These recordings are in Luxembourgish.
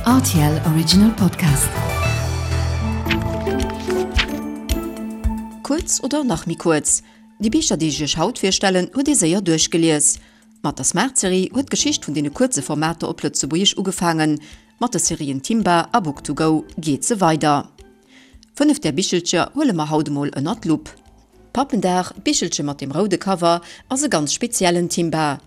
Rtl Original Podcast. Kuerz oder nach méi kuerz, Déi Bicher, déi ech iech haut virstellen, huet ee séier duerchgelies. Mat der Smart-Serie huet d'Geschicht vun deene kuerze Formater op Lëtzebuergesch ugefaangen. Mat de Serien Timba a Book to go geet se weider. 5 där Bichelcher huele mer haut emol ënnert d'Lupp. Pappendag, d'Bichelche mat dem roude Cover, ass e ganz speziellen Timba.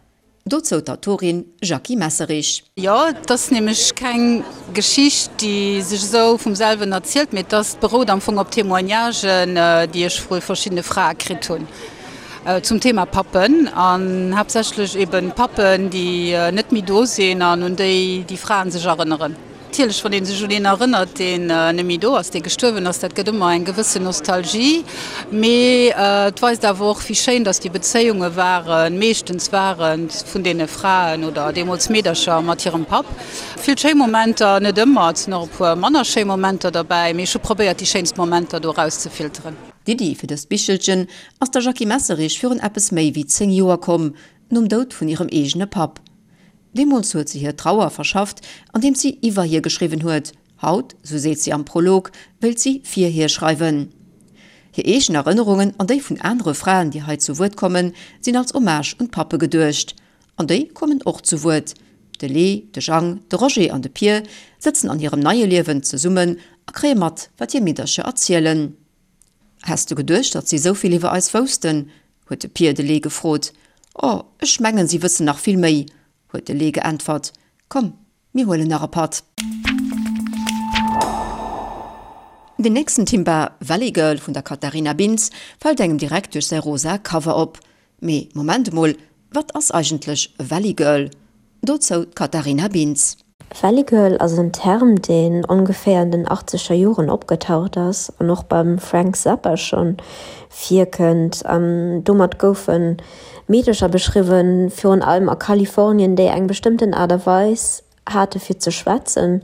Dozou d'Autorin Jackie Messerich. Jo, et ass nämlech keng Geschicht, déi sech esou vum selwen erzielt, mee et ass, berout am Fong op Témoignagen, déi ech vu verschiddene Frae kritt hunn zum Thema Pappen an haaptsächlech eben Pappen, déi net méi do sinn an un déi déi Fraen sech erënneren. Natierlech, wann ee sech un een erënnert, deen net méi do ass, dee gestuerwen ass, dat gëtt ëmmer eng gewëssen Nostalgie. Mee et weist awer och, wéi schéin datt déi Bezéiunge waren, meeschtens waren, vun deene Fraen oder deemools Meedercher mat hirem Papp. Vill schéi Momenter, net ëmmer, et sinn och e puer manner schéi Momenter derbäi, mee ech hu probéiert, déi schéinst Momenter do erauszefilteren. D'Iddi fir dëst Bichelchen ass der Jackie Messerich virun eppes méi wéi 10 Joer komm, nom Doud vun hirem eegene Papp. Deemools huet se hir Trauer verschafft, andeems si iwwer hie geschriwwen huet. Haut, sou seet si am Prolog, wéilt si fir hie schreiwen. Hir eegen Erënnerungen an déi vun anere Fraen, déi hei zu Wuert kommen, sinn als Hommage un d'Pappe geduecht. An déi kommen och zu Wuert. De Lee, de Jang, de Roger an de Pier sëtzen an hirem neie Liewen zesummen a kréie mat, wat hir Meedercher erzielen. Häss du geduecht, datt si esou vill iwwer eis woussten? huet de Pier de Lee gefrot. O, ech mengen, si wëssen nach vill méi, huet de Lee geäntwert. Komm, mir huelen nach e Patt. Den nächsten Timba, Valley Girl vun der Katharina Binz, fält engem direkt duerch säi rosa Cover op. Mee Moment emol, wat ass eigentlech e Valley Girl? Dozou d'Katharina Binz. Valley Girl ass en Term, deen ongeféier an den achtzeger Joren opgetaucht ass an och beim Frank Zappa schonn virkënnt. An domat goufe Meedecher beschriwwen, virun allem a Kalifornien, déi eng bestëmmten Aart a Weis hate fir ze schwätzen.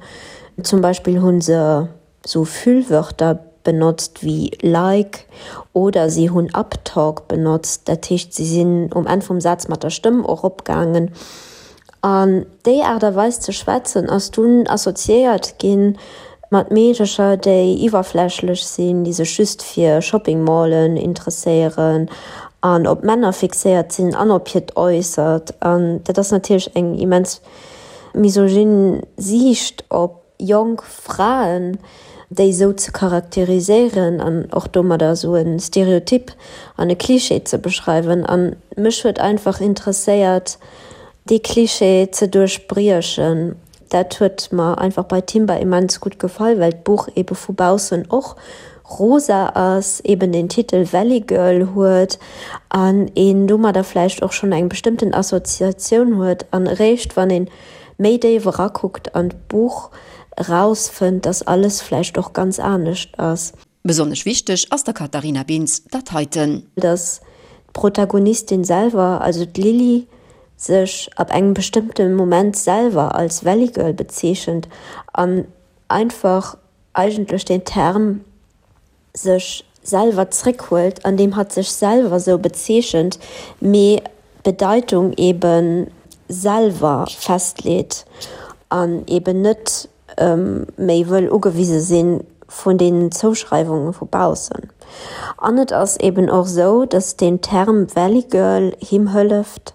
Zum Beispill hu se sou Füllwörter benotzt wéi like oder si hunn Uptalk benotzt, dat heescht si sinn um Enn vum Saz mat der Stëmm eropgaangen. An déi Aart a Weis ze schwätzen ass dunn assoziéiert gi mat Meedercher, déi iwwerflächlech sinn, déi sech just fir Shopping Mallen interesséieren an op Männer fixéiert sinn an op hiert Äussert. An dat ass natierlech eng immens misogyn Siicht op jonk Fraen, déi esou ze charakteriséieren an och domadder esou e Stereotyp an e Klischee ze beschreiwen. A mech huet einfach interesséiert, dee Klischee ze duerchbriechen. Dat huet mer einfach bei Timber immens gutt gefall, well d'Buch ebe vu baussen och rosa ass, eben den Titel Valley Girl huet an een domadder vläicht och schonn eng bestëmmten Assoziatioun huet an eréischt wann een méi déif erakuckt an d'Buch erausfënnt, dass alles vläicht och ganz anescht ass. Besonnesch wichteg ass der Katharina Bintz dat heiten. Dass d'Protagonistin selwer, also d'Lily, sech ab engem bestëmmte Moment selwer als Valley Girl bezeechent an einfach eigentlech den Term sech selwer zréckhuelt, andeem hatt sech selwer sou bezeechent, mee d'Bedeitung ebe selwer festleet an eben net méi wëll ugewise si vun deenen Zouschreiwunge vu baussen. An et ass eben och sou, datt deen Term Valley Girl him hëlleft,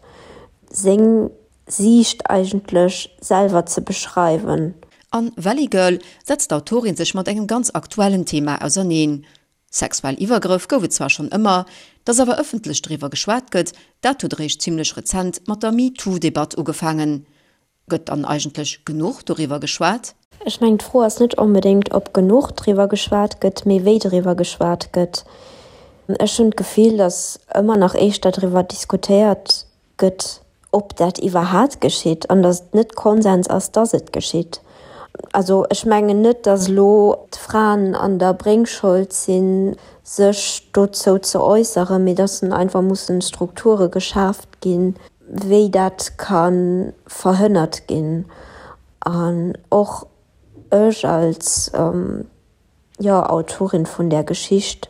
seng Siicht eigentlech selwer ze beschreiwen. An Valley Girl setzt d'Autorin sech mat engem ganz aktuellen Thema auserneen. Sexuell Iwwergrëff gouf et zwar schonn ëmmer, dass awer ëffentlech driwwer geschwat gëtt, dat huet eréischt zimmlech rezent mat der MeToo-Debatt ugefaangen. Gëtt dann eigentlech genuch doriwwer geschwat? Ech mengen, d'Fro ass net onbedéngt, ob genuch driwwer geschwat gëtt, mee wéi driwwer geschwat gëtt. Ech hunn d'Gefill, dass ëmmer nach éischter driwwer diskutéiert gëtt, ob dat iwwerhaat geschitt an datt et net Konsens ass, datt et geschitt. Also ech mengen net, datt elo d'Fraen an der Bréngschold sinn, sech dozou ze äusseren, mee datt einfach mussen Strukture geschaaft ginn, wéi dat ka verhënnert ginn. An och ech als. jo, Autorin vun där Geschicht,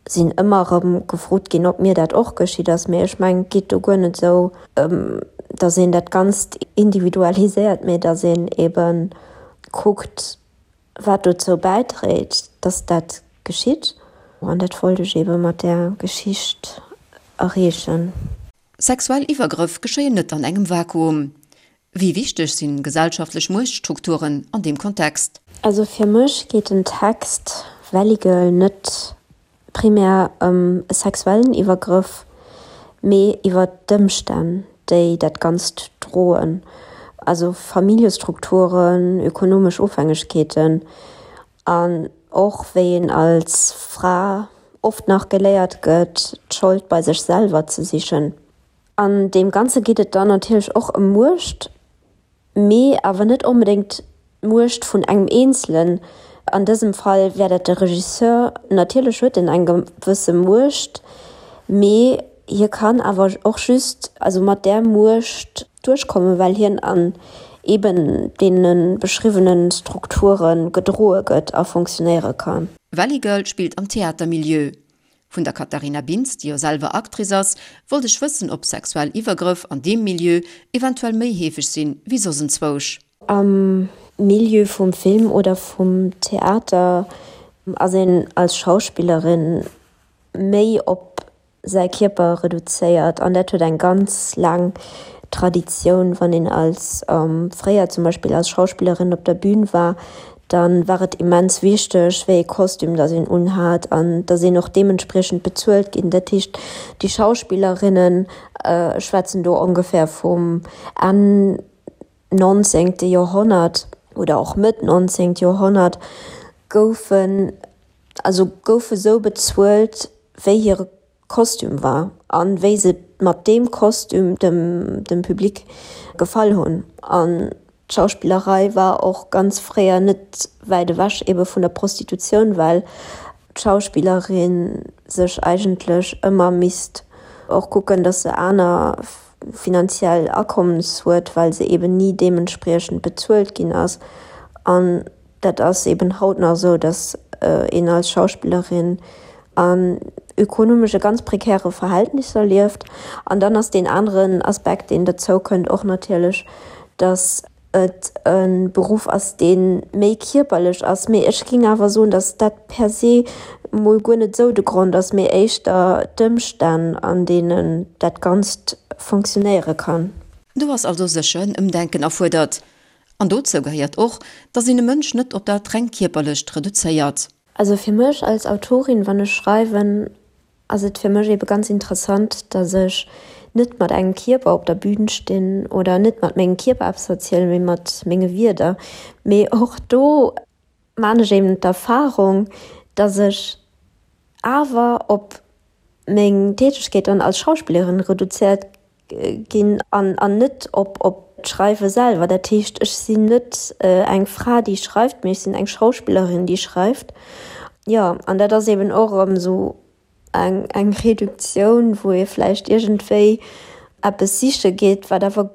sinn ëmmer erëm gefrot ginn, ob mir dat och geschitt ass. Mee ech mengen, et geet do guer net esou ëm, datt een dat Ganzt individualiséiert, mee datt een ebe kuckt, wat dozou bäidréit, dass dat geschitt. An dat wollt ech eebe mat där Geschicht erreechen. Sexuell Iwwergrëff geschéien net an engem Vakuum. Wéi wichteg sinn gesellschaftlech Muechtstrukturen an deem Kontext? Also fir mech geet den Text Valley Girl net primär ëm e sexuellen Iwwergrëff, mee iwwer d'Ëmstänn, déi dat Ganzt droen, also Familljestrukturen, ökonomesch Ofhängegkeeten an och wéi een als Fra oft nach geléiert gëtt, d'Schold bei sech selwer ze sichen. An deem Ganze geet et dann natierlech och ëm Muecht, mee awer net onbedéngt d'Muecht vun engem Eenzelen. An dësem Fall wär dat de Regisseur. Natierlech huet en eng gewësse Muecht, mee hie kann awer och just also mat där Muecht duerchkommen, well hien an eben deene beschriwwene Strukture gedroe gëtt a fonctionnéiere kann. Valley Girl spillt am Theatermilieu. Vun der Katharina Bintz, déi jo selwer Actrice ass, wollt ech wëssen, ob sexuell Iwwergrëff an deem Milieu eventuell méi heefeg sinn wéi soss enzwousch. Am Milieu vum Film oder vum Theater ass een als Schauspillerin méi op säi Kierper reduzéiert an dat huet eng ganz laang Traditioun. Wann een als fréier zum Beispill als Schauspillerin op der Bühn war, da war et immens wichteg, wéi ee Kostüm datt een unhat an datt een och deementspriechend bezuelt ginn. Dat heescht, déi Schauspillerinnen, ech schwätzen do ongefähr vum Enn nonzéngte Joerhonnert oder och Mëtt nonzéngt Joerhonnert, goufen, also goufe sou bezuelt, wéi hire Kostüm war an wéi se mat deem Kostüm dem dem Public gefall hunn. An d'Schauspillerei war och ganz fréier net wäit ewech ebe vun der Prostitutioun, well d'Schauspillerin sech eigentlech ëmmer misst och kucken, datt se aner finanziell Akommes huet, well se eben ni deementspriechend bezuelt ginn ass. An Dat ass eben haut nach esou, datt een als Schauspillerin an ökonomesche ganz prekäre Verhältnisser lieft. An dann ass deen aneren Aspekt, deen derzou kënnt, och natierlech, datt et e Beruff ass, dee méi kierperlech ass. Mee ech géing awer soen, datt dat per se mol guer net esou de Grond ass, mee éischter d'Ëmstänn, an deenen dat Ganzt fonctionnéiere kann. Do ass also sécher en Ëmdenken erfuerdert. An dozou gehéiert och, dass een e Mënsch net op dat reng Kierperlecht reduzéiert. Also fir mech als Autorin, wann ech schreiwen, ass et fir mech ebe ganz interessant, dass ech net mat engem Kierper op der Bühn stinn oder net mat mengem Kierper eppes erzielen, mee mat menge Wierder. Mee och do maan ech eben d'Erfahrung, dass ech awer op meng Tätegkeet dann als Schauspillerin reduzéiert ginn an an net op op d'Schreiwe selwer. Dat heescht, ech sinn net eng Fra, déi schreift, mee ech sinn eng Schauspillerin, déi schreift. Jo, an dat ass eben och erëm esou eng eng Reduktioun, wou ee vläicht iergendwéi eppes siche geet, wat awer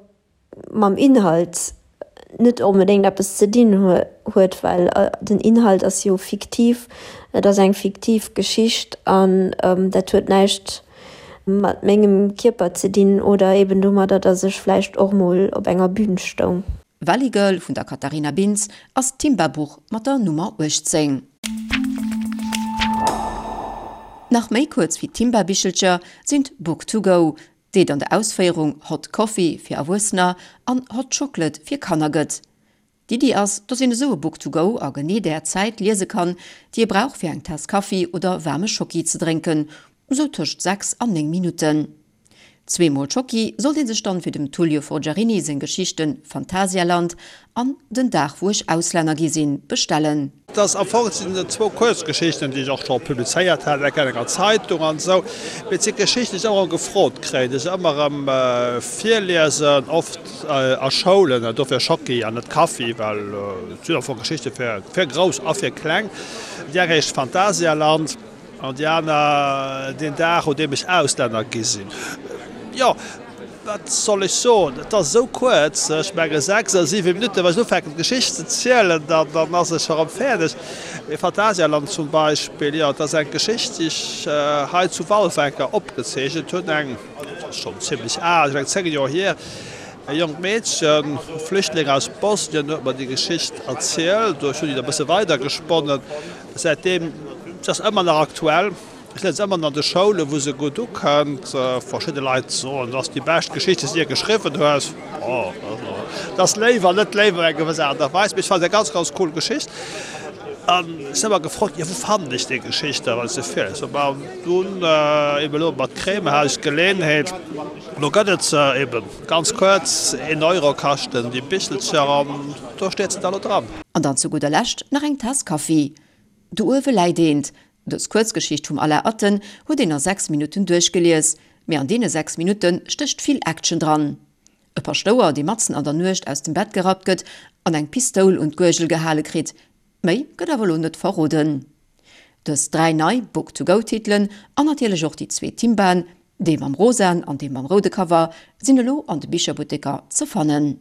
mam Inhalt net onbedéngt eppes ze dinn huet, well den Inhalt ass jo fiktiv, et ass eng fiktiv Geschicht an dat huet näischt mat mengem Kierper ze dinn oder eben domadder, datt ech vläicht och mol op enger Bühn stoung. Valley Girl vun der Katharina Bintz ass d'Timba-Buch mat der Nummer 18. Nach méi kuerz wéi d'Timba-Bichelcher sinn d'Book to go, déi et an der Ausféierung Hot Coffee fir Erwuessener an Hot Chocolate fir Kanner gëtt. D'Iddi ass, dass een esou e Book to go a genee där Zäit liese kann, déi ee brauch fir eng Taass Kaffi oder waarme Schocki ze drénken, esou tëscht 6 an 9 Minutten. Zweemol Schocki sollt ee sech dann fir dem Tullio Forgiarini seng Geschichten Phantasialand an Den Dag wou ech Auslänner gi sinn bestellen. Et ass am Fong, et sinn zwou Kuerzgeschichten, déi ech och scho publizéiert hat, eng an enger Zeitung an esou. Mee et si Geschichten, déi ech ëmmer erëm gefrot kréien, déi ech ëmmer erëm virliesen, oft a Schoulen, an dofir Schocki an net Kaffi, well et sinn am Fong Geschichte fir Grouss a fir Kleng. Déi eng heescht Phantasialand. An déi aner deen Dag, un deem ech Auslänner gi sinn. Jo, wat soll ech soen, et ass esou kuerz, ech menge 6 oder 7 Minutten, wann ech ufänken d'Geschicht ze zielen, dann ass ech scho rëm fäerdeg. Mee Phantasialand zum Beispill, jo, et ass eng Geschicht, déi ech hei zu Walfer eng Kéier opgezeechent hunn, eng, dat ass schonn zimlech al, ech meng 10 Joer hier. E jonkt Meedchen, Flüchtling aus Bosnien, huet mer déi Geschicht erzielt. Ech hunn déi da e bësse weidergesponnen. Säitdeem, se ass ëmmer nach aktuell. Ech liesen se ëmmer an de Schoulen, wou se gutt ukënnt. Verschidde Leit soen, dat ass déi bescht Geschicht, déi s de jee geschriwwen hues. Bon, dat ass léif an net léif op eng gewëss Aart a Weis, mee ech fannen se eng ganz, ganz cool Geschicht. An ech sinn ëmmer gefrot ginn, jo wou fannen ech déi Geschicht da, wann ech se virliesen? Bon, an dunn eben elo mat Creme hat ech d'Geleeënheet, elo gëtt et se eben ganz kuerz, een Euro kaschten déi Bichelcher an do steet se da elo dran. An dann zu gudder Lescht nach eng Taass Kaffi. Do uewe läit eent. Dës Kuerzgeschicht vum Alain Atten huet een a 6 Minutten duerchgelies, mee an deene 6 Minutte stécht vill Action dran. E Paschtouer, dee matzen an der Nuecht aus dem Bett gerappt gëtt an eng Pistoul un d'Guergel gehale kritt. Méi gëtt awer elo net verroden. Dës 3 nei Book to go-Titelen an natierlech och déi zwee Timbaen, dee mam rosaen an dee mam roude Cover, sinn elo an de Bicherbutteker ze fannen.